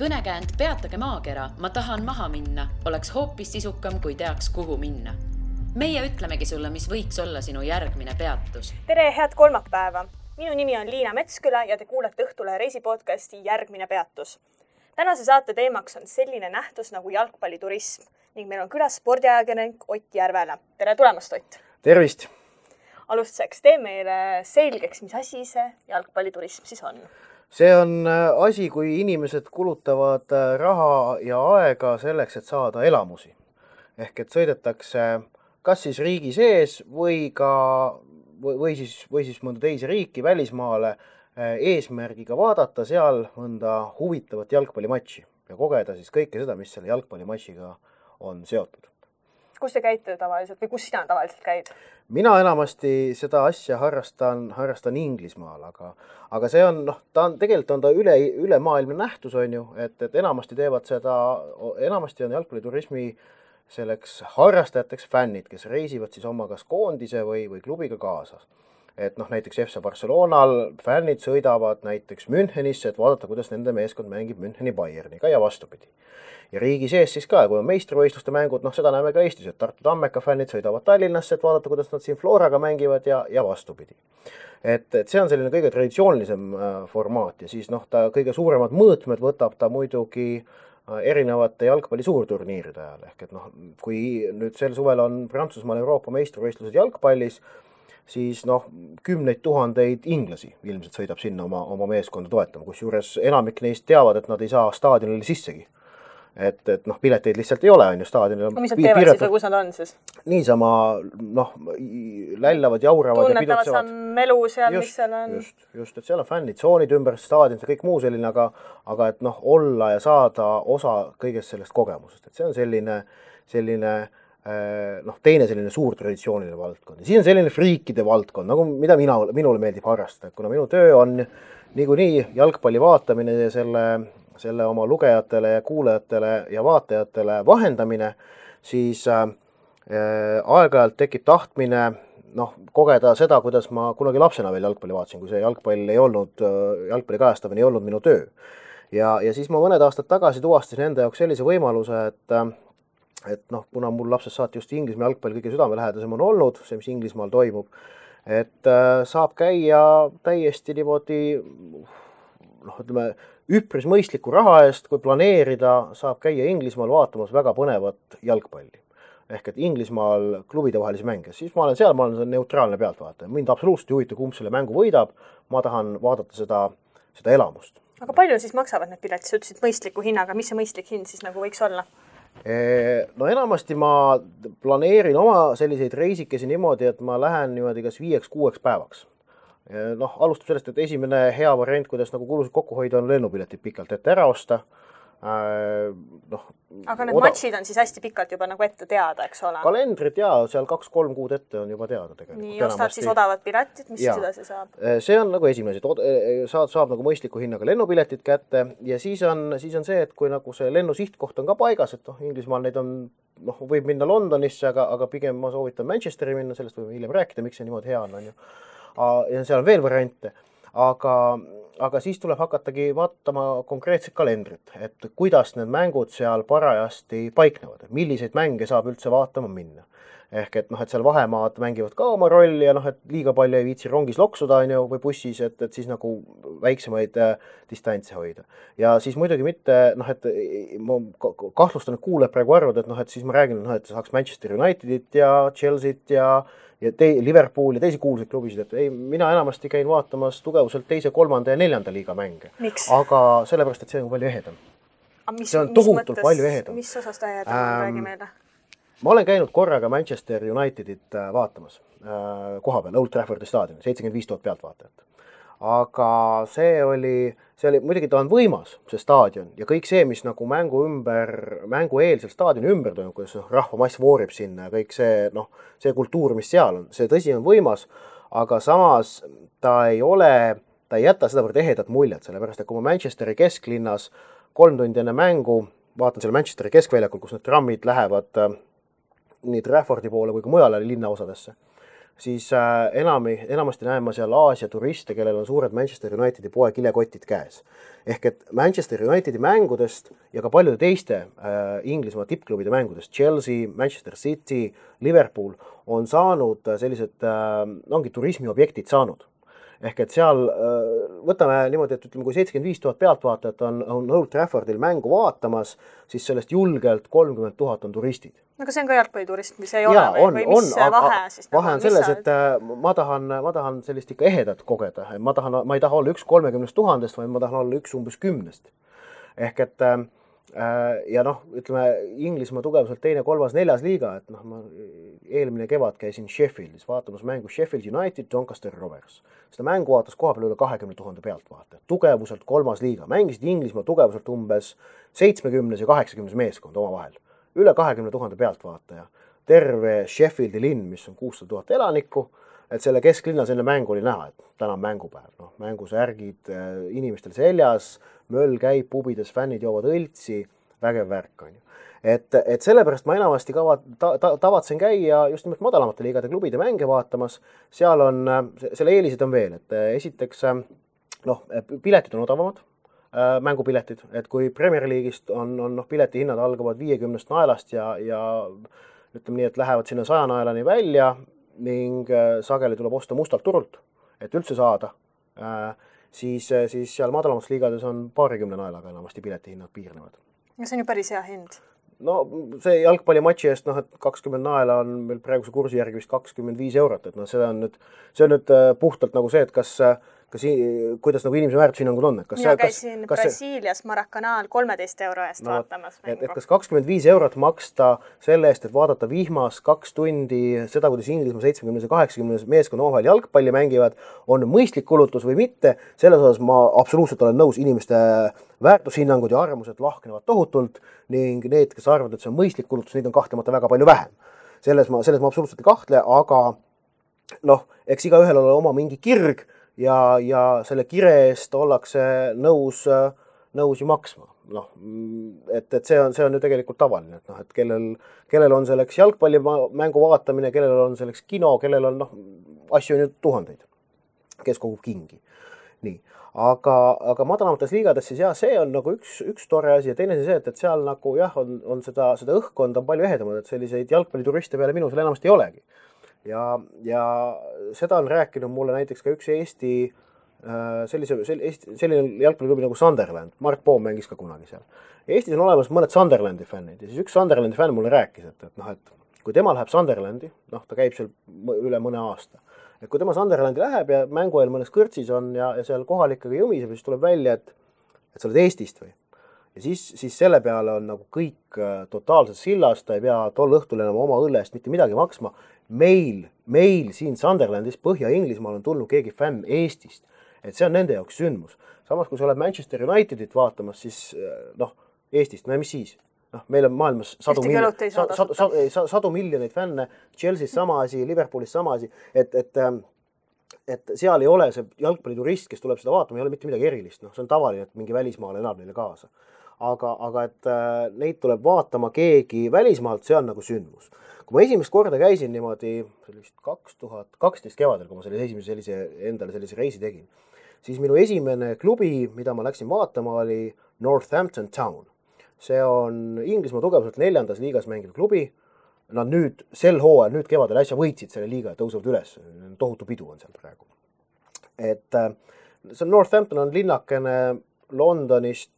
Kõnekäänd Peatage maakera, ma tahan maha minna, oleks hoopis sisukam, kui teaks, kuhu minna. Meie ütlemegi sulle, mis võiks olla sinu järgmine peatus. Tere, head kolmapäeva! Minu nimi on Liina Metsküla ja te kuulete Õhtulehe reisipodcasti Järgmine peatus. Tänase saate teemaks on selline nähtus nagu jalgpalliturism ning meil on külas spordiajakirjanik Ott Järvela. Tere tulemast, Ott! Tervist! Alustuseks tee meile selgeks, mis asi see jalgpalliturism siis on. See on asi, kui inimesed kulutavad raha ja aega selleks, et saada elamusi. Ehk et sõidetakse kas siis riigi sees või siis mõnda teise riiki välismaale eesmärgiga vaadata seal mõnda huvitavat jalgpallimatši ja kogeda siis kõike seda, mis selle jalgpallimatšiga on seotud. Kus te käite tavaliselt või kus sina tavaliselt käid? Mina enamasti seda asja harrastan Inglismaal, aga see on, tegelikult on ta ülemaailmne nähtus, on ju, et enamasti teevad seda, enamasti on jalgpalliturismi selleks harrastajateks fännid, kes reisivad siis oma kas koondise või klubiga kaasas. Et näiteks FC Barcelonal fännid sõidavad näiteks Münchenisse, et vaadata, kuidas nende meeskond mängib Müncheni Bayerniga ja vastupidi. Ja riigi sees siis ka, kui on meistrivõistluste mängud, seda näeme ka Eestis, et Tartu Tammeka fännid sõidavad Tallinnasse, et vaadata, kuidas nad siin Floraga mängivad ja vastupidi. Et see on selline kõige traditsioonilisem formaat ja siis ta kõige suuremad mõõtmed võtab ta muidugi erinevate jalgpalli suurturniiride ajal. Ehk et kui nüüd sel suvel on Prantsusmaal Euroopa meistrivõistlused jalgpallis, siis kümneid tuhandeid inglasi ilmselt sõidab sinna oma meeskonda toetama, kusjuures enamik neist teavad, et nad ei saa staadionile sissegi. Et pileteid lihtsalt ei ole, on ju staadionil. Mis nad teevad siis või kus nad on siis? Niisama, lällavad, jauravad ja pidutsevad. Tunnetavad sa melu seal, mis seal on? Just, et seal on fännid, tsoonid ümber staadionit ja kõik muu selline, aga et olla ja saada osa kõigest sellest kogemusest. Et see on selline teine selline suur traditsiooniline valdkond. Ja siis on selline friikide valdkond, mida minule meeldib harrastada, kuna minu töö on niikuinii jalgpalli vaatamine ja selle oma lugejatele ja kuulajatele ja vaatajatele vahendamine, siis aeg-ajalt tekib tahtmine kogeda seda, kuidas ma kunagi lapsena veel jalgpalli vaatasin, kui see jalgpalli kajastamine ei olnud minu töö. Ja siis ma mõned aastad tagasi tuvastasin enda jaoks sellise võimaluse, et kuna mul lapsest saati just Inglismaa jalgpall kõige südamelähedasem on olnud, see, mis Inglismaal toimub, et saab käia täiesti niimoodi, üpris mõistliku raha eest, kui planeerida, saab käia Inglismaal vaatamas väga põnevat jalgpalli. Ehk et Inglismaal klubide vahelisi mänge. Siis ma olen neutraalne pealtvaataja. Mind absoluutselt ei huvita, kumb selle mängu võidab. Ma tahan vaadata seda elamust. Aga palju siis maksavad need piletid? Sa ütlesid mõistliku hinnaga. Mis see mõistlik hind siis võiks olla? Enamasti ma planeerin oma selliseid reisikesi niimoodi, et ma lähen niimoodi kas 5-6 päevaks. Alustab sellest, et esimene hea variant, kuidas kulusid kokku hoida, on lennupiletid pikalt ette ära osta. Aga need matšid on siis hästi pikalt juba ette teada, eks ole? Kalendrid seal 2-3 kuud ette on juba teada tegelikult. Nii, ostad siis odavad piletid, mis edasi saab? See on esimene, saab mõistliku hinnaga lennupiletid kätte ja siis on see, et kui see lennu sihtkoht on ka paigas, et Inglismaal neid on, võib minna Londonisse, aga pigem ma soovitan Manchesteri minna, sellest võime hiljem rääkida, miks see niimoodi hea on ju. Ja seal on veel variante, aga siis tuleb hakatagi vaatama konkreetset kalendrit, et kuidas need mängud seal parajasti paiknevad, milliseid mänge saab üldse vaatama minna. Ehk et seal vahemaad mängivad ka oma rolli ja et liiga palju ei viitsi rongis loksuda või bussis, et siis väiksemaid distantse hoida. Ja siis muidugi mitte, et ma kahtlustan, et kuuleb praegu arvud, et siis ma räägin, et saaks Manchester Unitedit ja Chelsea't ja Liverpool ja teisi kuulsaid klubisid, et mina enamasti käin vaatamas tugevuselt 2., 3. ja 4. liiga mänge. Miks? Aga sellepärast, et see on palju ehedam. See on tohutult palju ehedam. Mis osast ehedam on, räägi meile? Ma olen käinud korraga Manchester Unitedit vaatamas koha peal, Old Traffordi staadioni, 75 000 pealtvaatajat. Aga see oli, muidugi ta on võimas, see staadion, ja kõik see, mis mängueelsel staadioni ümber toimub, kuidas rahvamass voorib sinna ja kõik see kultuur, mis seal on, see tõsi on võimas, aga samas ta ei jäta sedavõrd ehedat muljet, sellepärast, et kui ma Manchesteri kesklinnas 3 tundi enne mängu vaatan selle Manchesteri keskväljakul, kus need trammid lähevad nii Traffordi poole kui ka mujale linnaosadesse, siis enamasti näen ma seal Aasia turiste, kellel on suured Manchester Unitedi poe kilekotid käes. Ehk et Manchester Unitedi mängudest ja ka paljude teiste Inglismaa tippklubide mängudest, Chelsea, Manchester City, Liverpool, on saanud sellised, ongi turismiobjektid saanud. Ehk et seal võtame niimoodi, et ütleme, kui 75 000 pealtvaatajat on Old Traffordil mängu vaatamas, siis sellest julgelt 30 000 on turistid. No aga see on ka jalgpalliturism, mis ei ole või mis vahe siis? Vahe on selles, et ma tahan sellist ikka ehedat kogeda. Ma ei taha olla üks 30 000, vaid ma tahan olla üks umbes 10. Ehk et ja noh, ütleme Inglismaa tugevuselt 2., 3., 4. liiga, et noh, ma eelmine kevad käisin Sheffieldis vaatamas mängu Sheffield United, Doncaster Rovers. Seda mängu vaatas koha peal üle 20 000 pealtvaatajat. Tugevuselt 3. liiga. Mängisid Inglismaa tugevuselt umbes 70 ja 80 meeskond oma vahel. Üle 20 000 pealtvaataja. Terve Sheffieldi linn, mis on 600 000 elanikku, et selle kesklinna selline mängu oli näha, et täna on mängupäev. No, mängusärgid inimestel seljas, möll käib, pubides, fännid joovad õltsi, vägev värk on ju. Et sellepärast ma enamasti tavatsen käia just nimelt madalamate liigade klubide mänge vaatamas. Seal on, selle eelised on veel, et esiteks piletid on odavamad, mängupiletid, et kui Premier League'ist on piletihinnad algavad 50 naelast ja ütleme nii, et lähevad sinna 100 naelani välja ning sageli tuleb osta mustalt turult, et üldse saada, siis seal madalamates liigades on 20 naelaga enamasti piletihinnad piirnevad. Ja see on ju päris hea hind. No see jalgpallimatši eest, et 20 naela on meil praeguse kursi järgi vist 25 eurot, et see on nüüd puhtalt nagu see, et kuidas nagu inimese väärtushinnangud on. Mina käisin Brasiilias Maracanaal 13 euro eest vaatamas mängu. Et kas 25 eurot maksta selle eest, et vaadata vihmas 2 tundi seda, kuidas Inglismaa 70 ja 80 meeskonna omavahel jalgpalli mängivad, on mõistlik kulutus või mitte, selles osas ma absoluutselt olen nõus, inimeste väärtushinnangud ja arvamused lahknevad tohutult ning need, kes arvavad, et see on mõistlik kulutus, neid on kahtlemata väga palju vähem. Selles ma absoluutselt ei kahtle, aga eks igaühel ole oma mingi kirg ja selle kire eest ollakse nõus ju maksma. Et see on ju tegelikult tavaline, et kellel on selleks jalgpallimängu vaatamine, kellel on selleks kino, kellel on asju on ju tuhandeid, kes kogub kingi. Nii. Aga madalamates liigades siis see on nagu üks tore asi ja teine see, et seal nagu on seda õhkkonda palju ehedamad, et selliseid jalgpallituriste peale minu seal enamasti ei olegi. Ja seda on rääkinud mulle näiteks ka üks Eesti selline jalgpalliklubi nagu Sunderland. Mark Poom mängis ka kunagi seal. Eestis on olemas mõned Sunderlandi fännid ja siis üks Sunderlandi fänn mulle rääkis, et kui tema läheb Sunderlandi, ta käib seal üle mõne aasta. Et kui tema Sunderlandi läheb ja mängu eel mõnes kõrtsis on ja seal kohalikega jõmiseb, siis tuleb välja, et sa oled Eestist või. Ja siis selle peale on nagu kõik totaalselt sillast, ta ei pea tol õhtul enam oma õlle eest mitte midagi maksma. Meil siin Sunderlandis Põhja-Inglismaal on tulnud keegi fänn Eestist, et see on nende jaoks sündmus. Samas, kui sa oled Manchester Unitedit vaatamas, siis Eestist, mis siis? Meil on maailmas sadu miljoneid fänne, Chelsea's sama asi, Liverpoolis sama asi, et seal ei ole see jalgpalliturist, kes tuleb seda vaatama, ei ole mitte midagi erilist. See on tavaline, et mingi välismaal elab neile kaasa. Aga et neid tuleb vaatama keegi välismaalt, see on nagu sündmus. Kui ma esimest korda käisin niimoodi 2012 kevadel, kui ma endale sellise reisi tegin, siis minu esimene klubi, mida ma läksin vaatama, oli Northampton Town. See on Inglismaa tugevuselt 4. liigas mängiv klubi. Nad nüüd sel hooajal, nüüd kevadel äsja võitsid selle liiga ja tõusevad üles. Tohutu pidu on seal praegu. Et see Northampton on linnakene Londonist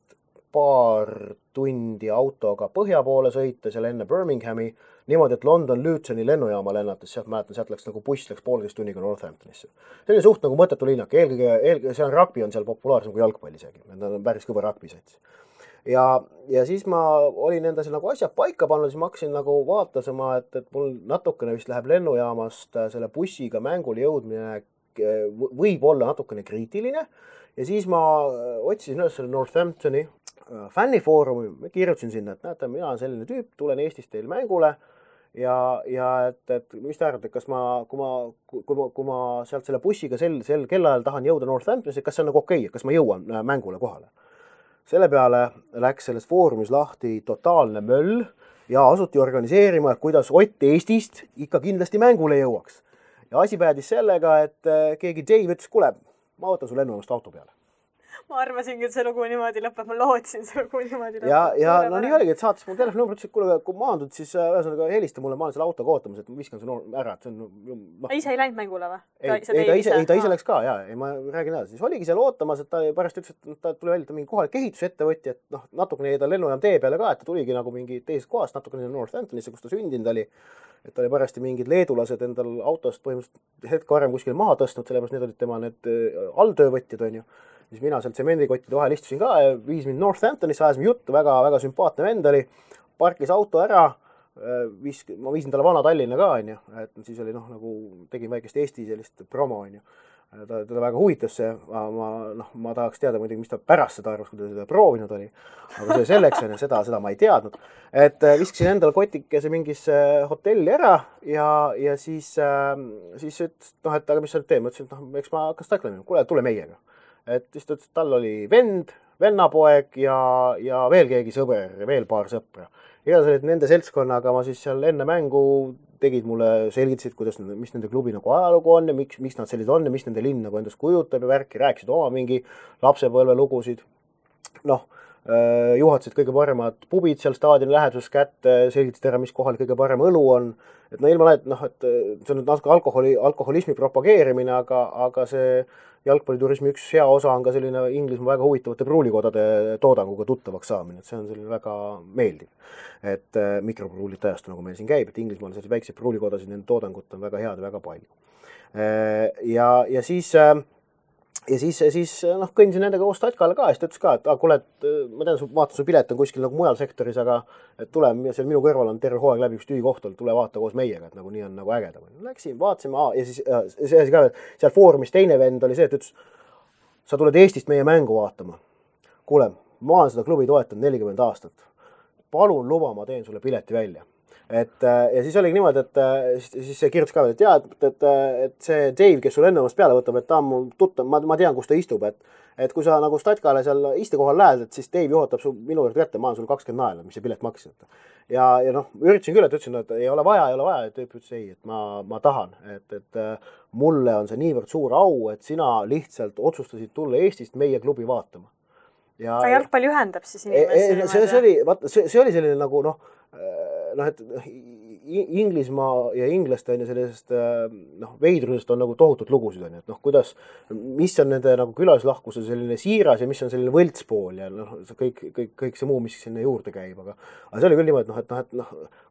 paar tundi autoga põhja poole sõita, seal enne Birminghami, niimoodi, et London Lutoni lennujaama lennates, sealt läks nagu buss läks 1,5 tunniga Northamptonisse. See oli suht nagu mõttetu linnak, eelkõige see on rugby on seal populaarsem kui jalgpall isegi, nad on päris kõva rugby-sats. Ja siis ma olin enda seal nagu asjad paika pannud, siis ma hakkasin nagu vaatasema, et mul natukene vist läheb lennujaamast selle bussiga mängule jõudmine võib olla natukene kriitiline ja siis ma otsisin üles selle Northamptoni fännifoorumi, kirjutasin sinna, et näete, mina olen selline tüüp, tulen Eestist teil mängule ja et mis te arvate, kas kui ma sealt selle bussiga sel kellaajal tahan jõuda Northamptonisse, kas see on nagu okei, kas ma jõuan mängule kohale? Selle peale läks selles foorumis lahti totaalne möll ja asuti organiseerima, kuidas Ott Eestist ikka kindlasti mängule jõuaks. ja asi päädis sellega, et keegi Dave ütles, kuule, ma võtan su lennujaamast auto peale. Ma arvasingi, et see lugu niimoodi lõpeb, ma lootsin see lugu niimoodi lõpeb. Ja no nii oligi, et saatis mu telefoni ütles, et kuule, kui maandud, siis ühesõnaga helista mulle, ma olen selle autoga ootamas, et ma viskan su ära. Et see on, ise ei läinud mängule või? Ta ise läks ka, ei, ma räägin edasi. Siis oligi seal ootamas, et ta pärast ütles, et ta tuli välja, ta mingi kohalik ehitusettevõtja, et natukene ta lennujaam tee peale ka, et ta tuligi nagu mingi teisest kohast, natukene Northamptonisse, kus ta sündinud oli. Et ta oli parasti mingid leedulased endal autost põhimõtteliselt hetke varem kuskil maha tõstnud, sellepärast need olid tema need alltöövõtjad, on ju. Siis mina seal tsemendikottide vahel istusin ka ja viis mind Northamptonisse, ajasime juttu, väga sümpaatne vend oli, parkis auto ära, ma viisin talle vana Tallinna ka, on ju, et siis oli nagu tegin väikest Eesti sellist promo, on ju. Ta väga huvitas see, ma tahaks teada muidugi, mis ta pärast seda arvas, kui ta seda proovinud oli, aga see selleks, seda ma ei teadnud, et viskasin endale kotikese mingisse hotelli ära ja siis ütles, et aga mis sa nüüd teed, ma ütlesin, et eks ma hakkas taklema, kuule, tule meiega. Et siis ta ütles, et tal oli vennapoeg ja veel keegi sõber, veel paar sõpra. Igatahes nende seltskonnaga ma siis seal enne mängu tegid mulle, selgitasid, mis nende klubi nagu ajalugu on ja miks nad sellised on ja mis nende linn nagu endast kujutab ja värki, rääkisid oma mingi lapsepõlve lugusid. Juhatasid kõige paremad pubid seal staadioni läheduses kätte, selgitasid ära, mis kohal kõige parem õlu on. Et ilma et see on natuke alkoholismi propageerimine, aga see jalgpalliturismi üks hea osa on ka selline Inglismaa väga huvitavate pruulikodade toodanguga tuttavaks saamine, et see on selline väga meeldiv. Et mikropruulid ajastu, nagu meil siin käib, et Inglismaal sellised väikseid pruulikodasid, nende toodangut on väga head ja väga palju. Ja siis kõndisin nendega koos Tatkale ka ja siis ta ütles ka, et kuule, ma tean, vaatan su pilet on kuskil nagu mujal sektoris, aga et tule, seal minu kõrval on terve hooaeg läbi üks tühikoht olnud, tule vaata koos meiega, et nagu nii on nagu ägedam. Läksin, vaatasime ja siis see asi ka, seal foorumis teine vend oli see, et ütles, sa tuled Eestist meie mängu vaatama. Kuule, ma olen seda klubi toetanud 40 aastat. Palun luba, ma teen sulle pileti välja. Ja siis oligi niimoodi, et siis see kirjutas ka, et see Dave, kes sul ennumast peale võtab, et ta on mul tuttav, ma tean, kus ta istub, et kui sa nagu Statkale seal istekohal lähed, et siis Dave juhatab su minu juurde kätte, ma olen sul 20 naela, mis see pilet maksis. Ja üritasin küll, et ütlesin, et ei ole vaja, et Dave ütles ei, et ma tahan, et mulle on see niivõrd suur au, et sina lihtsalt otsustasid tulla Eestist meie klubi vaatama. Ka jalgpalli ühendab siis inimesi. See oli selline nagu et Inglismaa ja inglaste on ja sellisest veidrusest on nagu tohutut lugusid on, et kuidas, mis on nende nagu külalislahkuse selline siiras ja mis on selline võltspool ja kõik see muu, mis sinna juurde käib, aga see oli küll niimoodi, et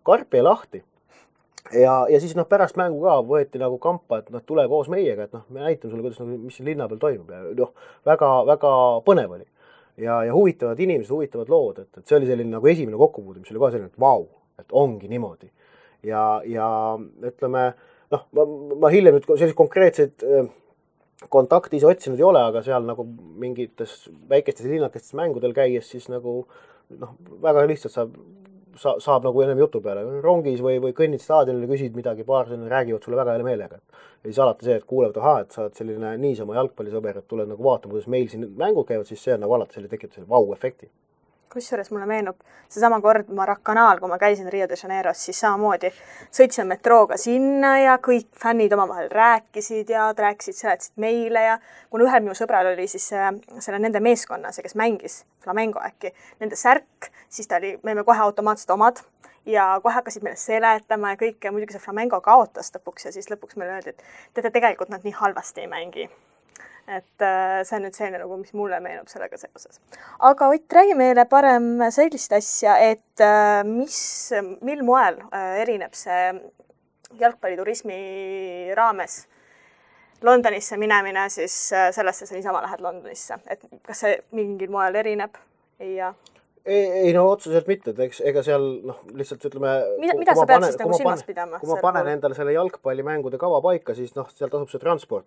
karp jäi lahti. Ja siis pärast mängu ka võeti nagu kampa, et tule koos meiega, et me näitame sulle, kuidas, mis siin linna peal toimub ja väga põnev oli. Ja huvitavad inimesed, huvitavad lood, et see oli selline nagu esimene kokkupuude, mis oli kohe selline, et vau, et ongi niimoodi. Ja ütleme, ma hiljem nüüd sellised konkreetseid kontakti ise otsinud ei ole, aga seal nagu mingites väikestes linnakestes mängudel käies siis nagu väga lihtsalt saab nagu ennem jutu peale. Rongis või kõnnid staadionile, küsid midagi, paar selline räägivad sulle väga hea meelega. Ja siis alati see, et kuulevad, et sa oled selline niisama jalgpallisõber, et tuled nagu vaatama, kuidas meil siin mängud käivad, siis see on nagu alati tekitab selle vau-efekti. Kusjuures mulle meenub seesama kord Maracanaal, kui ma käisin Rio de Janeiros, siis samamoodi sõitsin metrooga sinna ja kõik fännid omavahel rääkisid ja seletasid meile ja kuna ühel minu sõbral oli siis selle nende meeskonna, see kes mängis Flamengo äkki, nende särk, siis me olime kohe automaatselt omad ja kohe hakkasid meile seletama ja kõik ja muidugi see Flamengo kaotas lõpuks ja siis lõpuks meile öeldi, et tegelikult nad nii halvasti ei mängi. Et see on nüüd selline nagu, mis mulle meenub sellega seoses. Aga Ott, räägi meile parem sellist asja, et mil moel erineb see jalgpalliturismi raames Londonisse minemine siis sellesse, sa niisama lähed Londonisse. Et kas see mingil moel erineb? Ei, otseselt mitte, et ega seal lihtsalt ütleme... Mida sa pead siis nagu silmas pidama? Kui ma panen endale selle jalgpallimängude kava paika, siis seal tasub see transport,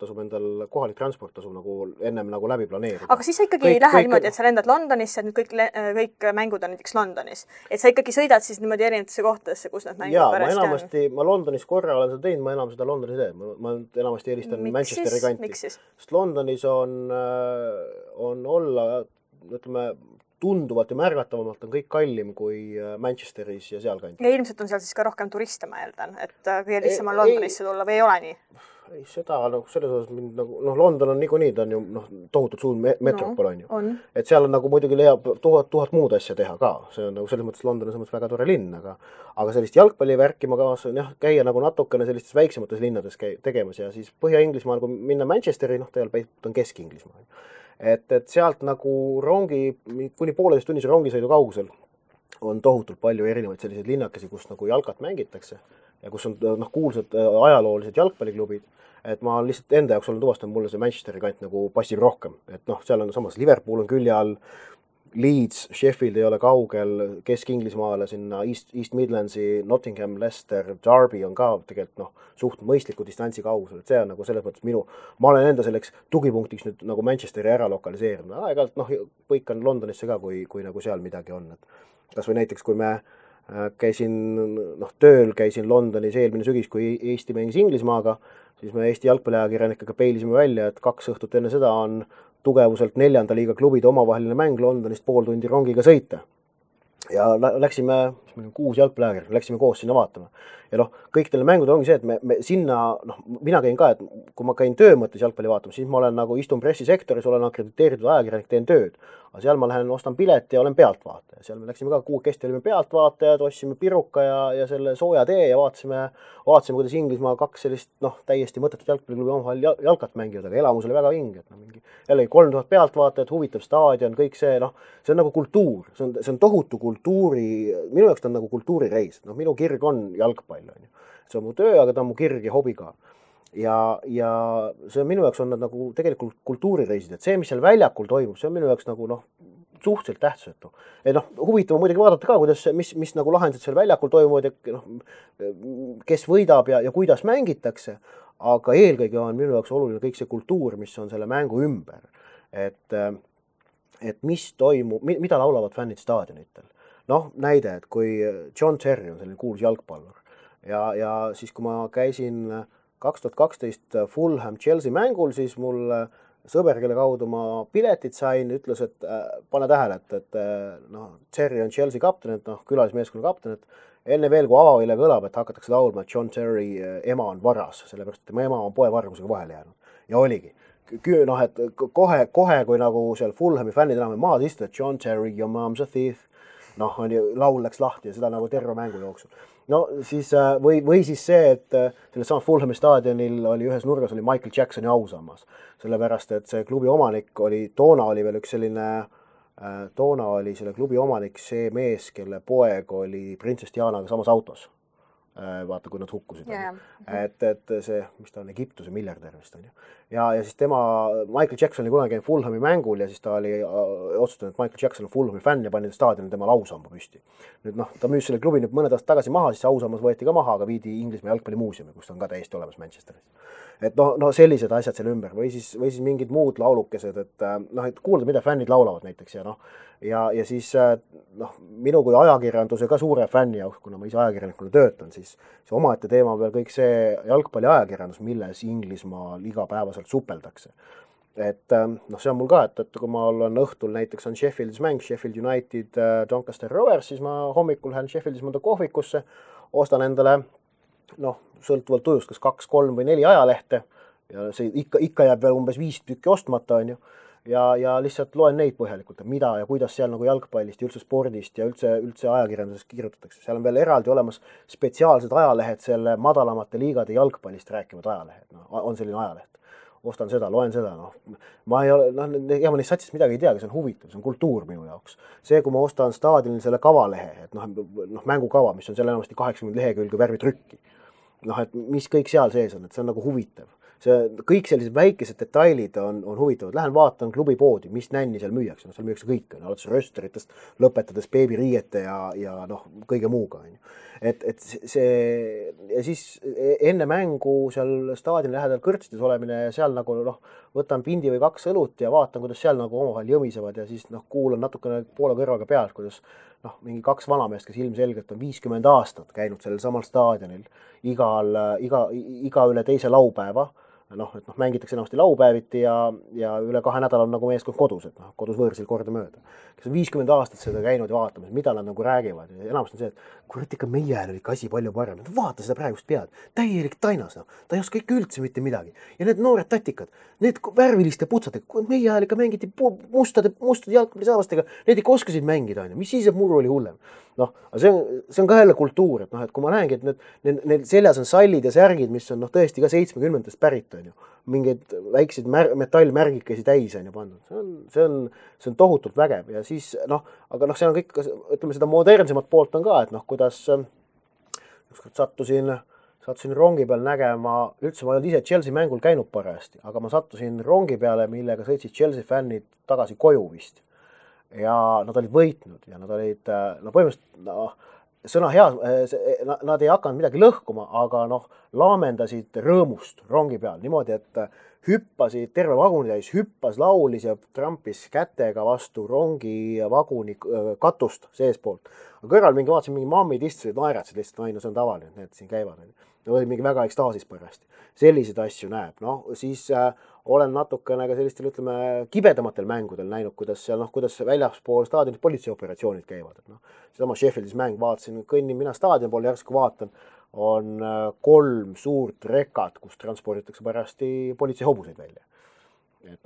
kohalik transport tasub nagu ennem nagu läbi planeerida. Aga siis sa ikkagi ei lähe niimoodi, et sa lendad Londonisse, et nüüd kõik mängud on näiteks Londonis. Et sa ikkagi sõidad siis niimoodi erinevatesse kohtadesse, kus need mängud pärast on? Ma Londonis korra olen seda teinud, ma enam seda Londonis teen. Ma enamasti eelistan Manchesteri kanti. Sest Londonis on olla, ütleme, tunduvalt ja märgatavamalt on kõik kallim kui Manchesteris ja seal kanti. Ja ilmselt on seal siis ka rohkem turiste, ma eeldan, et kõige lihtsam on Londonisse tulla või ei ole nii? ei, seda nagu selles osas mind nagu, London on niikuinii, ta on ju tohutult suur metropol on ju. Et seal on nagu muidugi leiab tuhat muud asja teha ka, see on nagu selles mõttes London on selles mõttes väga tore linn, aga sellist jalgpallivärki ma kavatsen käia nagu natukene sellistes väiksemates linnades tegemas ja siis Põhja-Inglismaal, kui minna Manchesteri, tegelikult on Kesk-Inglismaal. Et sealt nagu kuni 1,5 tunnise rongisõidu kaugusel on tohutult palju erinevaid selliseid linnakesi, kus nagu jalkat mängitakse ja kus on kuulsad ajaloolised jalgpalliklubid, et ma lihtsalt enda jaoks olen tuvastanud, mulle see Manchesteri kant nagu passib rohkem, et seal on samas Liverpool on külje all, Leeds, Sheffield ei ole kaugel, Kesk-Inglismaale sinna East Midlandsi, Nottingham, Leicester, Derby on ka tegelikult suht mõistliku distantsi kaugusel, et see on nagu selles mõttes ma olen enda selleks tugipunktiks nüüd nagu Manchesteri ära lokaliseerinud, aeg-ajalt põikan Londonisse ka, kui nagu seal midagi on, et kas või näiteks, kui me käisin Londonis eelmine sügis, kui Eesti mängis Inglismaaga, siis me Eesti jalgpalliajakirjanikega peilisime välja, et 2 õhtut enne seda on tugevuselt 4. liiga klubide omavaheline mäng Londonist 0,5 tundi rongiga sõita. Ja läksime, 6 jalgpalliajakirjanikega, läksime koos sinna vaatama. Ja kõik teile mängud ongi see, et me sinna, mina käin ka, et kui ma käin töö mõttes jalgpalli vaatama, siis ma olen nagu istun pressisektoris, olen akrediteeritud ajakirjanik, teen tööd. Aga seal ma lähen, ostan pileti ja olen pealtvaataja. Seal me läksime ka 6 kesti, olime pealtvaatajad, ostsime piruka ja selle sooja tee ja vaatasime, kuidas Inglismaa 2 sellist täiesti mõttetut jalgpalliklubi omavahel jalkat mängivad, aga elamus oli väga vinge. Jällegi 3000 pealtvaatajat, huvitav staadion, kõik see, see on nagu kultuur, see on tohutu kultuuri, minu jaoks ta on nagu kultuurireis. Minu kirg on jalgpall. See on mu töö, aga ta on mu kirg ja hobi ka. Ja see on minu jaoks on nad nagu tegelikult kultuurireisid, et see, mis seal väljakul toimub, see on minu jaoks nagu suhteliselt tähtsusetu. Et huvitav muidugi vaadata ka, kuidas, mis nagu lahendused seal väljakul toimuvad ja kes võidab ja kuidas mängitakse, aga eelkõige on minu jaoks oluline kõik see kultuur, mis on selle mängu ümber. Et mis toimub, mida laulavad fännid staadionitel. Näide, et kui John Terry on selline kuulus jalgpallur ja siis, kui ma käisin 2012 Fulham Chelsea mängul, siis mul sõber, kelle kaudu ma piletid sain, ütles, et pane tähele, et Terry on Chelsea kapten, et külalismeeskonna kapten, et enne veel, kui avavile kõlab, et hakatakse laulma, et John Terry ema on varas, sellepärast, et tema ema on poevargusega vahele jäänud. Ja oligi. Et kohe, kui nagu seal Fulhami fännid enam maas istuvad, et John Terry, your mom's a thief, laul läks lahti ja seda nagu terve mängu jooksul. Siis, või siis see, et selles samas Fulhami staadionil oli ühes nurgas oli Michael Jacksoni ausammas, sellepärast, et see klubi omanik toona oli veel üks selline, toona oli selle klubi omanik see mees, kelle poeg oli printsess Dianaga samas autos. Vaata, kui nad hukkusid. Et see, mis ta on, Egiptuse miljardär vist on ju. Ja siis Michael Jackson oli kunagi Fulhami mängul ja siis ta oli otsustanud, et Michael Jackson on Fulhami fänn ja pani staadionil tema lausamba püsti. Nüüd ta müüs selle klubi nüüd mõned aastad tagasi maha, siis ausammas võeti ka maha, aga viidi Inglismaa jalgpallimuuseumi, kus ta on ka täiesti olemas Manchesteris. Et sellised asjad seal ümber või siis mingid muud laulukesed, et kuulda, mida fännid laulavad näiteks ja siis minu kui ajakirjanduse ka suure fänni jaoks, kuna ma ise ajakirjanikuna töötan, siis see omaette teema veel kõik see jalgpalli ajakirjandus, milles Inglismaal igapäevaselt supeldakse. Et see on mul ka, et kui ma olen õhtul näiteks on Sheffieldis mäng, Sheffield United, Doncaster Rovers, siis ma hommikul lähen Sheffieldis mõnda kohvikusse, ostan endale sõltuvalt tujust, kas 2, 3 või 4 ajalehte ja see ikka jääb veel umbes 5 tükki ostmata, on ju. Ja lihtsalt loen neid põhjalikult, mida ja kuidas seal nagu jalgpallist ja üldse spordist ja üldse ajakirjandusest kirjutatakse. Seal on veel eraldi olemas spetsiaalsed ajalehed selle madalamate liigade jalgpallist rääkivad ajalehed. On selline ajaleht. Ostan seda, loen seda. Ma ei ole, ma neist satsist midagi ei tea, aga see on huvitav, see on kultuur minu jaoks. See, kui ma ostan staadionil selle kavalehe, et mängukava, mis on seal enamasti 80 lehekülge värvitrükki. Et mis kõik seal sees on, et see on nagu huvitav. Kõik sellised väikesed detailid on huvitavad. Lähen vaatan klubipoodi, mis nänni seal müüakse. Seal müüakse kõik, alates rösteritest, lõpetades beebiriiete ja kõige muuga. Et see, ja siis enne mängu seal staadioni lähedal kõrtsides olemine ja seal nagu võtan pindi või 2 õlut ja vaatan, kuidas seal nagu omavahel jõmisevad ja siis kuulan natukene poole kõrvaga pealt, kuidas mingi 2 vanameest, kes ilmselgelt on 50 aastat käinud sellel samal staadionil iga üle teise laupäeva, et mängitakse enamasti laupäeviti ja üle 2 nädala on nagu meeskond kodus, et kodus võõrsil kordamööda. Kes on 50 aastat seda käinud ja vaatamas, mida nad nagu räägivad ja enamasti on see, et kurat ikka meie ajal oli ikka asi palju parem. Vaata seda praegust pead, täielik tainas, ta ei oska ikka üldse mitte midagi. Ja need noored tatikad, need värviliste putsatega, meie ajal ikka mängiti mustade jalgpallisaavastega, need ikka oskasid mängida, mis siis, et muru oli hullem. See on ka jälle kultuur, et kui ma näengi, et need seljas on sallid ja särgid, mis on tõesti ka 70-ndast pärit, mingeid väikseid metallmärgikesi täis on pandud. See on tohutult vägev ja siis, aga see on kõik, ütleme seda modernsemat poolt on ka, et kuidas ükskord sattusin rongi peal nägema, üldse ma ei olnud ise Chelsea mängul käinud parajasti, aga ma sattusin rongi peale, millega sõitsid Chelsea fännid tagasi koju vist. Ja nad olid võitnud ja nad olid, põhimõtteliselt, sõna hea, nad ei hakanud midagi lõhkuma, aga laamendasid rõõmust rongi peal niimoodi, et hüppasid terve vaguni täis, hüppas, laulis ja trampis kätega vastu rongi vaguni katust seespoolt. Aga kõrval vaatasin mingi mammid istusid, naeratsid lihtsalt, see on tavaline, et need siin käivad. Oli mingi väga ekstaasis pärast. Selliseid asju näeb. Siis olen natukene ka sellistel, ütleme, kibedamatel mängudel näinud, kuidas väljaspool staadionit politseioperatsioonid käivad. Seesama Sheffieldis mäng, vaatasin, kõnnin mina staadioni poole, järsku vaatan, on 3 suurt rekat, kus transporditakse pärasti politseihobuseid välja. Et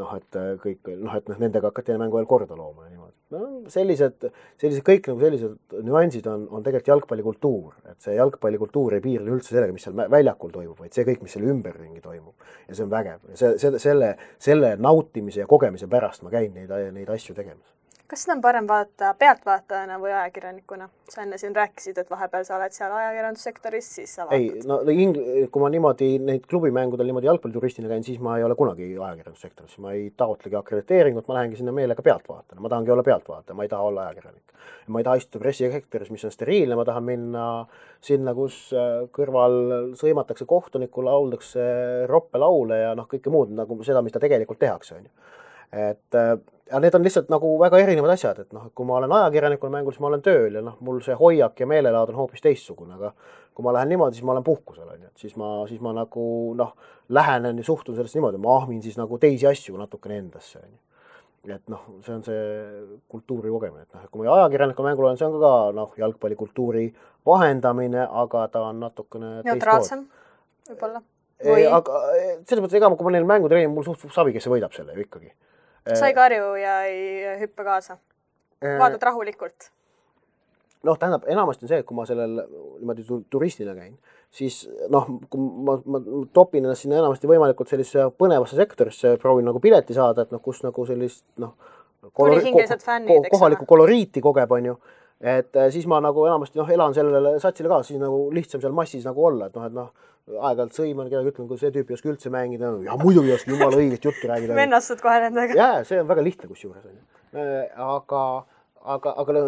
kõik, et nendega hakati mängu veel korda looma. Sellised kõik sellised nüansid on tegelikult jalgpallikultuur. Et see jalgpallikultuur ei piirle üldse sellega, mis seal väljakul toimub, vaid see kõik, mis selle ümberringi toimub. Ja see on vägev. Selle nautimise ja kogemise pärast ma käin neid asju tegemas. Kas seda on parem vaadata pealtvaatajana või ajakirjanikuna? Sa enne siin rääkisid, et vahepeal sa oled seal ajakirjandussektoris, siis sa vaatad. Kui ma niimoodi neid klubimängudel niimoodi jalgpallituristina käin, siis ma ei ole kunagi ajakirjandussektoris. Ma ei taotlegi akrediteeringut, ma lähengi sinna meelega pealtvaatajana. Ma tahangi olla pealtvaataja, ma ei taha olla ajakirjanik. Ma ei taha istuda pressisektoris, mis on steriilne, ma tahan minna sinna, kus kõrval sõimatakse kohtunikku, lauldakse roppe laule ja kõike muud nagu seda, mis ta tegelikult tehakse. Ja need on lihtsalt nagu väga erinevad asjad, et kui ma olen ajakirjanikul mängul, siis ma olen tööl ja mul see hoiak ja meelelaad on hoopis teistsugune, aga kui ma lähen niimoodi, siis ma olen puhkusel, siis ma nagu lähenen ja suhtun sellest niimoodi, ma ahmin siis nagu teisi asju natukene endasse. Et see on see kultuuri kogemine, et kui ma ajakirjanikul mängul olen, see on ka jalgpallikultuuri vahendamine, aga ta on natukene neutraalsem võib-olla. Aga selles mõttes, ega kui ma neil mängu treenin, mul suht savi, kes võidab selle ju ikkagi. Sa ei karju ja ei hüppe kaasa? Vaatad rahulikult? Tähendab, enamasti on see, et kui ma sellel niimoodi turistina käin, siis kui ma topin ennast sinna enamasti võimalikult sellise põnevasse sektorisse, proovin nagu pileti saada, et kus nagu sellist kohalikku koloriiti kogeb, on ju. Et siis ma nagu enamasti elan sellele satsile kaasa, siis nagu lihtsam seal massis nagu olla, et aeg-ajalt sõiman, kedagi ütlen, kui see tüüp ei oska üldse mängida, ja muidugi ei oska jumala õigest juttu räägida. Vennastud kohe nendega. Jaa, see on väga lihtne kusjuures. Aga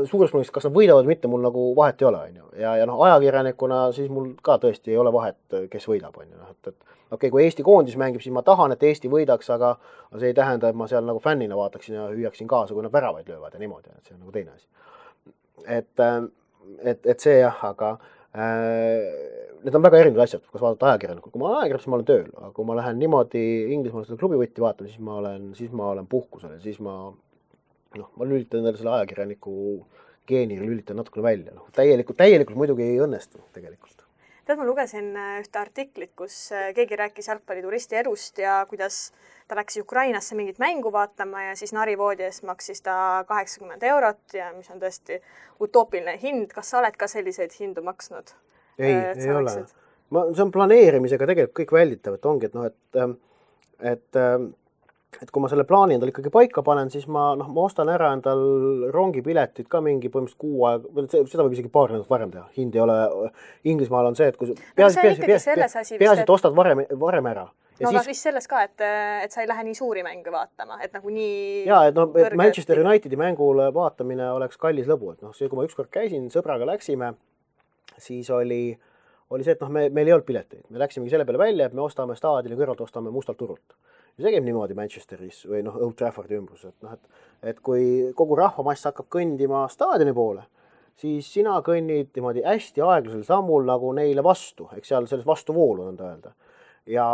suures plaanis, kas nad võidavad või mitte, mul nagu vahet ei ole. Ja ajakirjanikuna siis mul ka tõesti ei ole vahet, kes võidab. Kui Eesti koondis mängib, siis ma tahan, et Eesti võidaks, aga see ei tähenda, et ma seal nagu fännina vaataksin ja hüüaksin kaasa, kui nad väravaid löövad ja niimoodi. See on nagu teine asi. Et see jah, aga need on väga erinevad asjad, kas vaadata ajakirjanikul. Kui ma olen ajakirjanik, siis ma olen tööl, aga kui ma lähen niimoodi Inglismaal seda klubivõtti vaatama, siis ma olen puhkusel ja siis ma lülitan endale selle ajakirjaniku geeni lülitan natukene välja. Täielikult muidugi ei õnnestu tegelikult. Ma lugesin ühte artiklit, kus keegi rääkis jalgpallituristi elust ja kuidas ta läks Ukrainasse mingit mängu vaatama ja siis narivoodi eest maksis ta 80 €, ja mis on tõesti utoopiline hind. Kas sa oled ka selliseid hindu maksnud? Ei ole. See on planeerimisega tegelikult kõik välditav, et ongi, et kui ma selle plaani endal ikkagi paika panen, siis ma ostan ära endal rongipiletid ka mingi põhimõtteliselt 6 aega, seda võib isegi paar nädalat varem teha. Hind ei ole, Inglismaal on see, et kui peaasi, et ostad varem ära. Aga vist selles ka, et sa ei lähe nii suuri mänge vaatama, et nagu nii... Jaa, et Manchester Unitedi mängule vaatamine oleks kallis lõbu. Et see, kui ma ükskord käisin, sõbraga läksime, siis oli see, et meil ei olnud pileteid. Me läksimegi selle peale välja, et me ostame staadioni kõrvalt, ostame mustalt turult. Ja see käib niimoodi Manchesteris või Old Traffordi ümbrus. Et kui kogu rahvamass hakkab kõndima staadioni poole, siis sina kõnnid niimoodi hästi aeglasel sammul nagu neile vastu, eks seal selles vastuvoolu on öelda. ja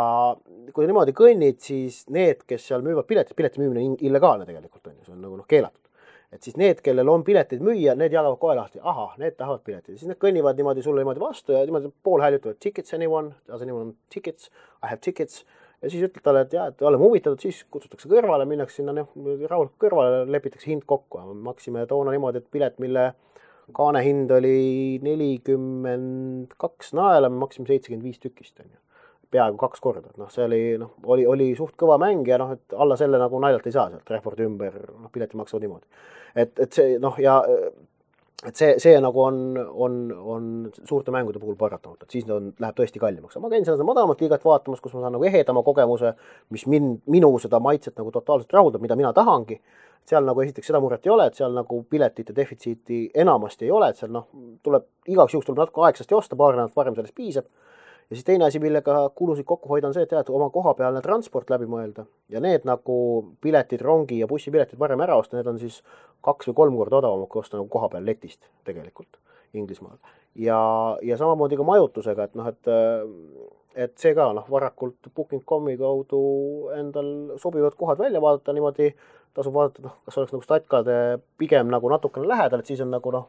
kui sa niimoodi kõnnid, siis need, kes seal müüvad pileti müümine on illegaalne tegelikult on ju, see on nagu keelatud. Et siis need, kellel on piletid müüa, need jagavad kohe lahti, ahah, need tahavad piletid. Siis need kõnnivad niimoodi sulle niimoodi vastu ja niimoodi pool häälutavad tickets anyone, tickets, I have tickets. Ja siis ütled talle, et jah, et oleme huvitatud, siis kutsutakse kõrvale, minnakse sinna rahulikult kõrvale, lepitakse hind kokku. Maksime toona niimoodi, et pilet, mille kaane hind oli 42 naela, me maksime 75 tükist. Peaaegu 2 korda. See oli suht kõva mäng ja et alla selle nagu naljalt ei saa sealt Refordi ümber, pileti maksavad niimoodi. Et see, ja et see nagu on suurte mängude puhul paratamata, et siis läheb tõesti kallimaks. Ma käin seda madalamat liigat vaatamas, kus ma saan nagu ehedama kogemuse, mis minu seda maitset nagu totaalselt rahuldab, mida mina tahangi. Seal nagu esiteks seda muret ei ole, et seal nagu piletite defitsiiti enamasti ei ole, et seal igaks juhuks tuleb natuke aegsasti osta, paar nädalat varem sellest piisab. Ja siis teine asi, millega kulusid kokku hoida on see, et oma kohapealne transport läbi mõelda. Ja need nagu piletid, rongi ja bussipiletid varem ära osta, need on siis 2 või 3 korda odavamad kui osta nagu kohapeal letist tegelikult Inglismaal. Ja samamoodi ka majutusega, et see ka varakult Booking.comi kaudu endal sobivad kohad välja vaadata niimoodi, tasub vaadata, kas oleks nagu statkade pigem nagu natukene lähedal, et siis on nagu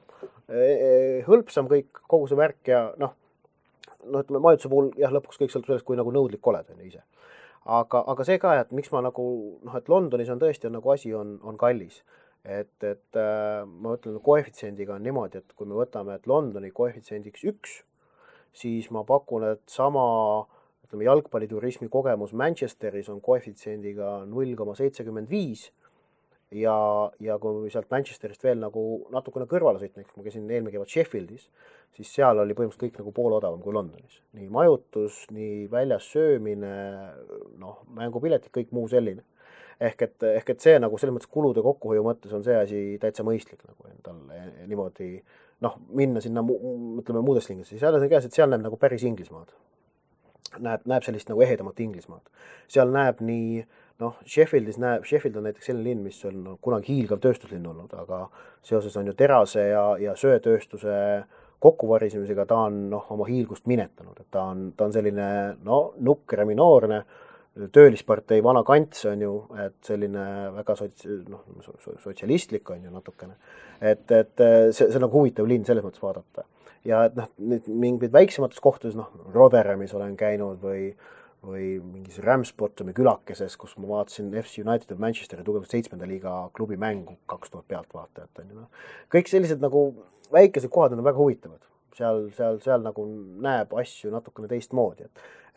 hõlpsam kõik, kogu see värk ja ütleme, majutuse puhul jah, lõpuks kõik sõltub sellest, kui nagu nõudlik oled ise. Aga see ka, et miks ma nagu, et Londonis on tõesti nagu asi on kallis. Et ma ütlen, koefitsiendiga on niimoodi, et kui me võtame, et Londoni koefitsiendiks 1, siis ma pakun, et sama jalgpalliturismi kogemus Manchesteris on koefitsiendiga 0,75 ja kui sealt Manchesterist veel nagu natukene kõrvale sõitma, kui ma käisin eelmine kevad Sheffieldis, siis seal oli põhimõtteliselt kõik nagu pool odavam kui Londonis. Nii majutus, nii väljas söömine, mängupiletid, kõik muu selline. Ehk et see nagu selles mõttes kulude kokkuhoiu mõttes on see asi täitsa mõistlik nagu endal niimoodi minna sinna, ütleme muudes lingides. Seal on see käes, et seal näeb nagu päris Inglismaad. Näeb sellist nagu ehedamat Inglismaad. Seal näeb nii, Sheffield on näiteks selline linn, mis on kunagi hiilgav tööstuslinn olnud, aga seoses on ju terase ja söetööstuse kokkuvarisemisega ta on oma hiilgust minetanud, et ta on selline nukker ja minoorne töölispartei vana kants on ju, et selline väga sotsialistlik on ju natukene, et see on nagu huvitav linn selles mõttes vaadata ja et mingid väiksemates kohtades, Rotherhamis olen käinud või mingis Ramsbottomi külakeses, kus ma vaatasin FC United of Manchesteri tugevalt 7. liiga klubi mängu 2000 pealtvaatajat. Kõik sellised nagu väikesed kohad on väga huvitavad. Seal nagu näeb asju natukene teistmoodi.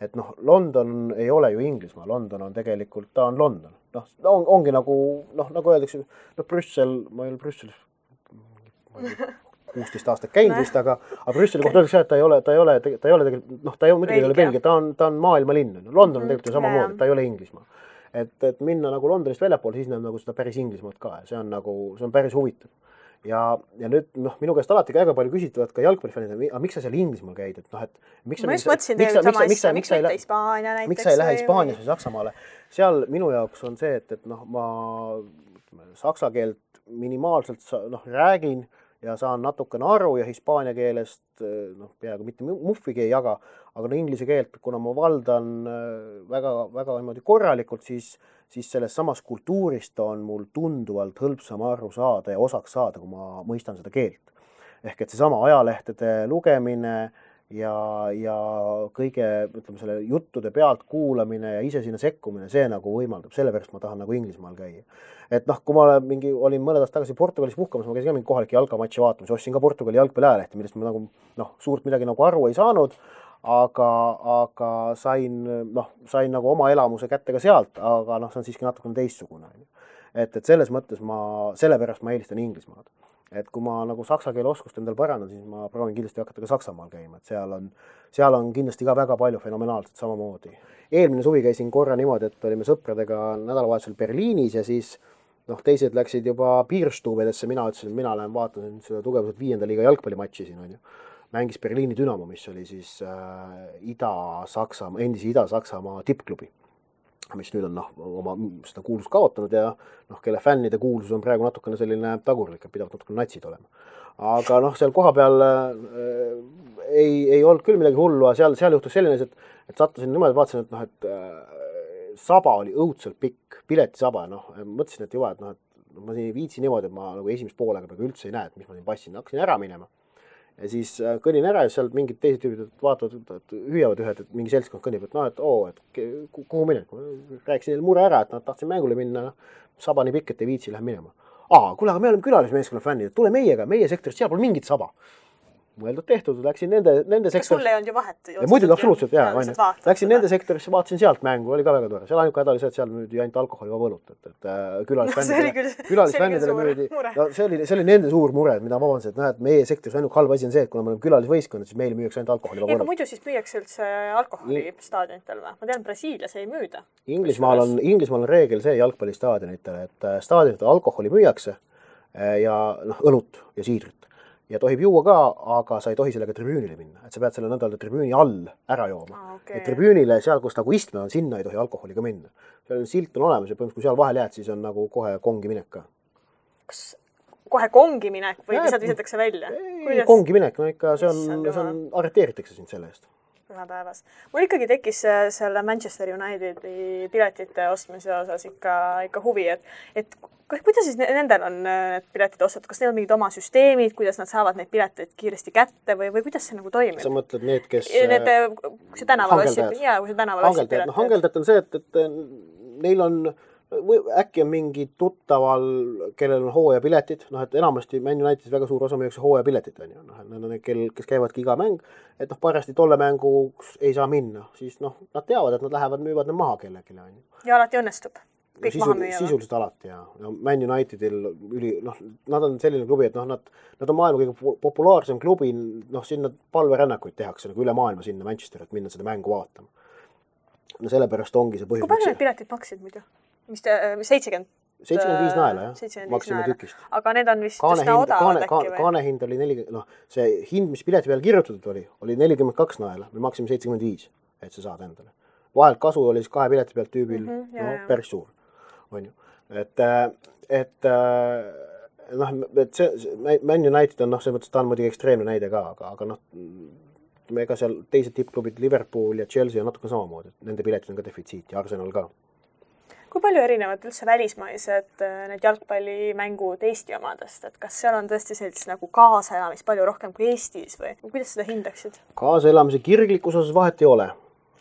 Et London ei ole ju Inglismaa, London on tegelikult, ta on London. Ongi nagu öeldakse, Brüssel, ma ei ole Brüsselis 16 aastat käinud vist, aga Brüsseli kohta öeldakse, et ta ei ole tegelikult, ta muidugi ei ole Belgia, ta on maailmalinn. London on tegelikult ju samamoodi, ta ei ole Inglismaa. Et minna nagu Londonist väljapool, siis näeb nagu seda päris Inglismaad ka ja see on päris huvitav. Ja nüüd minu käest alati väga palju küsitavad ka jalgpallifännid, aga miks sa seal Inglismaal käid? Ma just mõtlesin tegelikult sama asja, miks mitte Hispaania näiteks? Miks sa ei lähe Hispaanias või Saksamaale? Seal minu jaoks on see, et ma saksa keelt minimaalselt räägin ja saan natukene aru ja hispaania keelest peaaegu mitte muffigi ei jaga, aga inglise keelt, kuna ma valdan väga niimoodi korralikult, siis selles samas kultuurist on mul tunduvalt hõlpsam aru saada ja osaks saada, kui ma mõistan seda keelt. Ehk et seesama ajalehtede lugemine ja kõige, ütleme, selle juttude pealt kuulamine ja ise sinna sekkumine, see nagu võimaldab, sellepärast ma tahan nagu Inglismaal käia. Et kui ma olin mõned aastad tagasi Portugalis puhkamas, ma käisin ka mingi kohalike jalkamatši vaatamas, ostsin ka Portugali jalgpalli ajalehti, millest ma nagu suurt midagi nagu aru ei saanud, aga sain nagu oma elamuse kätte ka sealt, aga see on siiski natukene teistsugune. Et selles mõttes sellepärast ma eelistan Inglismaad. Et kui ma nagu saksa keele oskust endal parandan, siis ma proovin kindlasti hakata ka Saksamaal käima, et seal on kindlasti ka väga palju fenomenaalset samamoodi. Eelmine suvi käisin korra niimoodi, et olime sõpradega nädalavahetusel Berliinis ja siis teised läksid juba piirstuubedesse, mina ütlesin, et mina lähen vaatan seda tugevuselt 5. liiga jalgpallimatši siin on ju. Mängis Berliini Dynamo, mis oli siis endise Ida-Saksamaa tippklubi, mis nüüd on oma seda kuulsust kaotanud ja kelle fännide kuulsus on praegu natukene selline tagurlik, et pidavad natukene natsid olema. Aga seal koha peal ei olnud küll midagi hullu, aga seal juhtus selline, et sattusin niimoodi, vaatasin, et noh, et saba oli õudselt pikk, piletisaba, noh, mõtlesin, et juba, et noh, et ma siin ei viitsi niimoodi, et ma nagu esimest poolega praegu üldse ei näe, et mis ma siin passin, hakkasin ära minema. Ja siis kõnin ära ja seal mingid teised tüübid vaatavad, et hüüavad ühed, et mingi seltskond kõnnib, et noh, et kuhu minek. Rääkisin neile mure ära, et nad tahtsin mängule minna, saba nii pikk, et ei viitsi, lähe minema. Kuule, aga me oleme külalismeeskonna fännid, tule meiega, meie sektoris, seal pole mingit saba. Mõeldud tehtud, läksin nende sektorisse. Sul ei olnud ju vahet? Ja muidugi absoluutselt, jaa. Läksin nende sektorisse, vaatasin sealt mängu, oli ka väga tore. Seal ainuke häda oli see, et seal müüdi ainult alkoholi võlut, et külalisfännidele müüdi. No, see oli nende suur mure, mida ma vabandasin, et näed, meie sektoris ainult halb asi on see, et kuna me oleme külalisvõistkond, siis meile müüakse ainult alkoholi võlut. Aga muidu siis müüakse üldse alkoholi staadionitel või? Ma tean, Brasiilias ei müüda. Inglismaal on reegel see jalgpallistaadionitel, et staadionitel alkoholi müüakse ja õlut ja siidrit. Ja tohib juua ka, aga sa ei tohi sellega tribüünile minna. Et sa pead selle nõnda tribüüni all ära jooma. Ja tribüünile, seal, kus nagu istme on, sinna ei tohi alkoholiga minna. Seal silt on olemas ja põhimõtteliselt, kui seal vahel jääd, siis on nagu kohe kongi minek ka. Kas kohe kongi minek või lihtsalt visatakse välja? Kongi minek, no ikka see on arreteeritakse sind selle eest. Päevas. Mul ikkagi tekkis selle Manchester Unitedi piletite ostmise osas ikka huvi, et kuidas siis nendel on need piletid ostatud? Kas neil on mingid oma süsteemid, kuidas nad saavad neid pileteid kiiresti kätte või kuidas see nagu toimib? Sa mõtled need, kes... Kui see tänaval ossib pileteid. Hangeldajad on see, et neil on... Äkki on mingi tuttaval, kellel on hooajapiletid, noh, et enamasti Man Unitedis väga suur osa müüakse hooajapiletid, on ju, noh, need on kes käivadki iga mäng, et noh, parasti tolle mänguks ei saa minna, siis noh, nad teavad, et nad lähevad, müüvad need maha kellelegi, on ju. Ja alati õnnestub kõik maha müüa. Sisuliselt alati, ja Man Unitedil nad on selline klubi, et noh, nad on maailma kõige populaarsem klubi, noh, sinna palverännakuid tehakse nagu üle maailma sinna Manchester, et minna seda mängu vaatama. No sellepärast ongi see põhjus. Kui palju need piletid maksid muidu? Mis 70? 75 naela, jah. Maksime tükist. Aga need on vist üsna odavad äkki või? Kaanehind oli 40, noh, see hind, mis pileti peal kirjutatud oli 42 naela. Me maksime 75, et sa saad endale. Vahelt kasu oli siis 2 pileti pealt tüübil, päris suur. On ju. Et Man United on, noh, see mõttes ta on muidugi ekstreemne näide ka, aga noh, ega seal teised tippklubid, Liverpool ja Chelsea on natuke samamoodi. Nende piletid on ka defitsiit ja Arsenal ka. Kui palju erinevad üldse välismaised need jalgpallimängud Eesti omadest? Et kas seal on tõesti sellist nagu kaasaelamis palju rohkem kui Eestis või kuidas seda hindaksid? Kaasaelamise kirglikus osas vahet ei ole.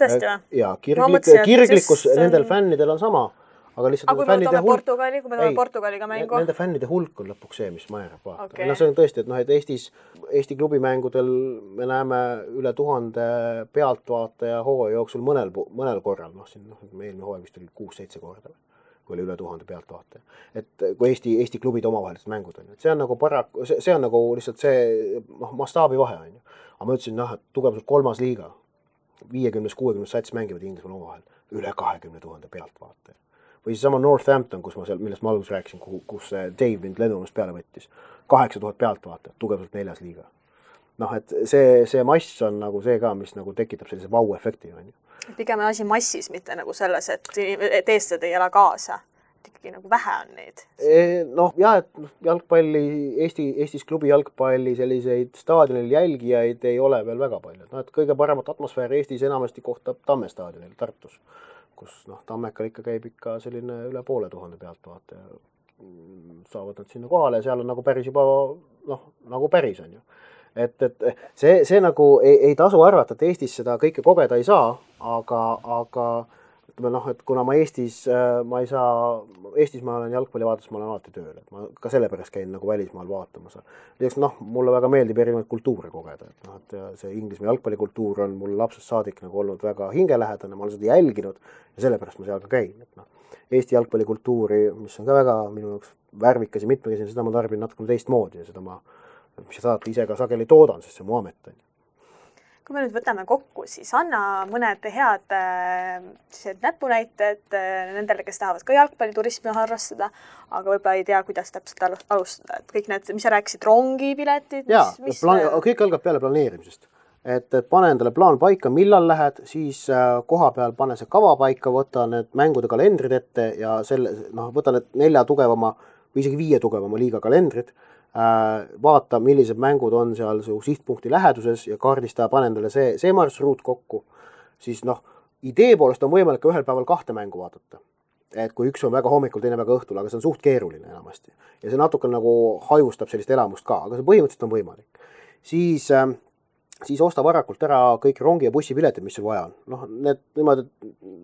Tõesti või? Ja kirglikkus nendel fännidel on sama. Aga kui me võtame Portugaliga mängu? Nende fännide hulk on lõpuks see, mis määrab vaata. Okay. No see on tõesti, et noh, et Eesti klubimängudel me näeme üle 1000 pealtvaataja hooaja jooksul mõnel korral. Noh, siin eelmine hooaja vist oli 6-7 korda, kui oli üle 1000 pealtvaataja. Et kui Eesti klubid omavahelised mängud on. See on nagu see on nagu lihtsalt see mastaabi vahe on ju. Aga ma ütlesin, et tugevalt 3. liiga, 50-60 sats mängivad Inglismaal omavahel üle 20 000 pealtvaataja. Või siis sama Northampton, millest ma alguses rääkisin, kus Dave mind lennumast peale võttis. 8000 pealtvaatajat, tugevalt 4. liiga. Noh, et see mass on nagu see ka, mis nagu tekitab sellise vau-efekti. Pigem asi massis, mitte nagu selles, et eestlased ei ela kaasa. Ikkagi nagu vähe on neid. Noh, jah, et jalgpalli, Eestis klubi jalgpalli selliseid staadionil jälgijaid ei ole veel väga palju. No, et kõige paremat atmosfääri Eestis enamasti kohtab Tamme staadionil Tartus, kus Tammekal ikka käib ikka selline üle 500 pealtvaataja. Saavad nad sinna kohale ja seal on nagu päris juba, nagu päris on ju. Et see nagu ei tasu arvata, et Eestis seda kõike kogeda ei saa, aga et kuna ma Eestis ma olen jalgpallivaates, ma olen alati tööl, et ma ka sellepärast käin nagu välismaal vaatamas. Lisaks mulle väga meeldib erinevaid kultuure kogeda, et see Inglismaa jalgpallikultuur on mul lapsest saadik nagu olnud väga hingelähedane, ma olen seda jälginud ja sellepärast ma seal ka käin. Eesti jalgpallikultuuri, mis on ka väga minu jaoks värvikas ja mitmekesine, seda ma tarbin natukene teistmoodi ja seda mis sa saad ise ka sageli toodan, sest see mu amet on. Kui me nüüd võtame kokku, siis anna mõned head näpunäited nendele, kes tahavad ka jalgpalliturismi harrastada, aga võib-olla ei tea, kuidas täpselt alustada. Et kõik need, mis sa rääkisid, rongipiletid? Kõik algab peale planeerimisest. Et pane endale plaan paika, millal lähed, siis koha peal pane see kava paika, võta need mängude kalendrid ette ja võta need 4 tugevama või isegi 5 tugevama liiga kalendrit, vaata, millised mängud on seal su sihtpunkti läheduses ja kaardista, pane endale see marsruut kokku, siis idee poolest on võimalik ühel päeval 2 mängu vaadata. Et kui üks on väga hommikul, teine väga õhtul, aga see on suht keeruline enamasti. Ja see natuke nagu hajustab sellist elamust ka, aga see põhimõtteliselt on võimalik. Siis osta varakult ära kõik rongi- ja bussipiletid, mis sul vaja on. Need niimoodi,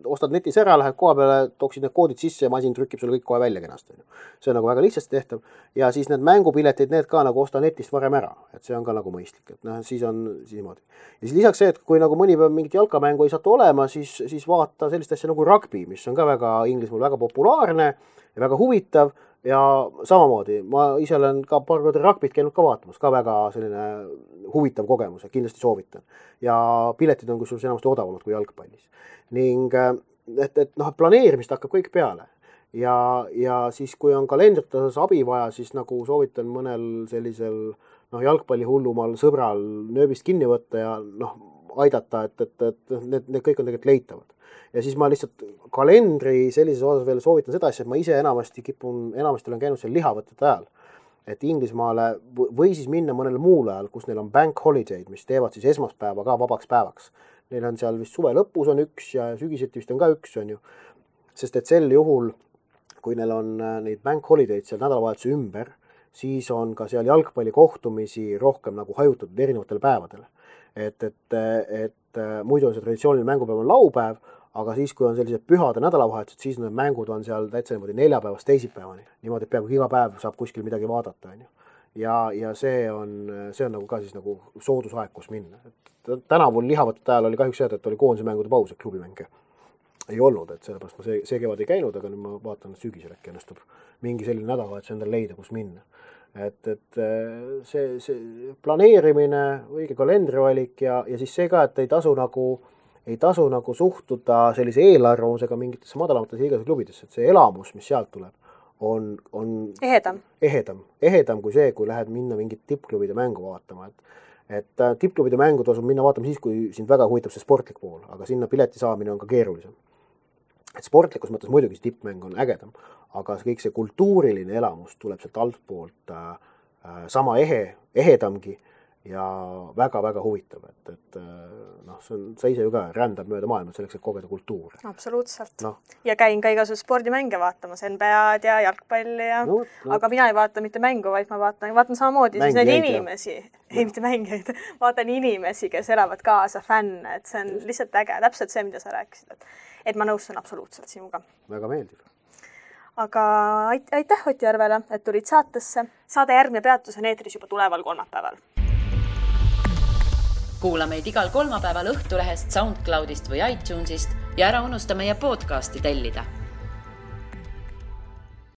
ostad netis ära, lähed koha peale, tooksid need koodid sisse ja masin trükib sulle kõik kohe välja kenasti. See on nagu väga lihtsasti tehtav. Ja siis need mängupiletid, need ka nagu osta netist varem ära. Et see on ka nagu mõistlik. Et siis on niimoodi. Ja siis lisaks see, et kui nagu mõni päev mingit jalkamängu ei saatu olema, siis vaata sellist asja nagu rugby, mis on ka väga Inglismaal väga populaarne ja väga huvitav. Ja samamoodi, ma ise olen ka paar korda rugbyt käinud ka vaatamas, ka väga selline huvitav kogemus, kindlasti soovitan. Ja piletid on kusjuures enamasti odavamad kui jalgpallis. Ning planeerimist hakkab kõik peale. Ja siis, kui on kalendrit osas abi vaja, siis nagu soovitan mõnel sellisel jalgpallihullumal sõbral nööbist kinni võtta ja aidata, et need kõik on tegelikult leitavad. Ja siis ma lihtsalt kalendri sellises osas veel soovitan seda asja, et ma ise enamasti olen käinud seal lihavõtete ajal. Et Inglismaale või siis minna mõnele muule ajal, kus neil on bank holiday'd, mis teevad siis esmaspäeva ka vabaks päevaks. Neil on seal vist suve lõpus on üks ja sügiseti vist on ka üks, on ju. Sest et sel juhul, kui neil on neid bank holiday'd seal nädalavahetuse ümber, siis on ka seal jalgpallikohtumisi rohkem nagu hajutatud erinevatel päevadel. Et muidu on see traditsiooniline mängupäev on laupäev, aga siis, kui on sellised pühade nädalavahetused, siis need mängud on seal täitsa niimoodi 4 päevast teisipäevani. Niimoodi, et peaaegu iga päev saab kuskil midagi vaadata. Ja see on nagu ka siis nagu soodusaeg, kus minna. Tänavul lihavõtete ajal oli kahjuks see, et oli koondise mängude paus, et klubimänge ei olnud. Et sellepärast ma see kevad ei käinud, aga nüüd ma vaatan, et sügisel äkki ennustub mingi selline nädalavahetus endale leida, kus minna. Et see planeerimine, õige kalendrivalik ja siis see ka, et ei tasu nagu suhtuda sellise eelarvamusega mingitesse madalamates liigas klubidesse, et see elamus, mis sealt tuleb, on ehedam kui see, kui lähed minna mingit tippklubide mängu vaatama. Et tippklubide mängu tasub minna vaatama siis, kui sind väga huvitab see sportlik pool, aga sinna pileti saamine on ka keerulisem. Et sportlikus mõttes muidugi see tippmäng on ägedam, aga kõik see kultuuriline elamus tuleb sealt altpoolt sama ehedamgi ja väga-väga huvitav, et sa ise ju ka rändad mööda maailma selleks, et kogeda kultuuri. Absoluutselt. Ja käin ka igasugused spordimänge vaatamas, NBA-d ja jalgpalli ja... Aga mina ei vaata mitte mängu, vaid ma vaatan samamoodi siis neid inimesi. Ei, mitte mängijaid. Vaatan inimesi, kes elavad kaasa, fänne, et see on lihtsalt äge. Täpselt see, mida sa rääkisid. Et ma nõustun absoluutselt sinuga. Väga meeldib. Aga aitäh Ott Järvele, et tulid saatesse. Saade järgmine peatus on eetris juba tuleval kolmapäeval. Kuula meid igal kolmapäeval Õhtulehest, SoundCloudist või iTunesist ja ära unusta meie podcasti tellida.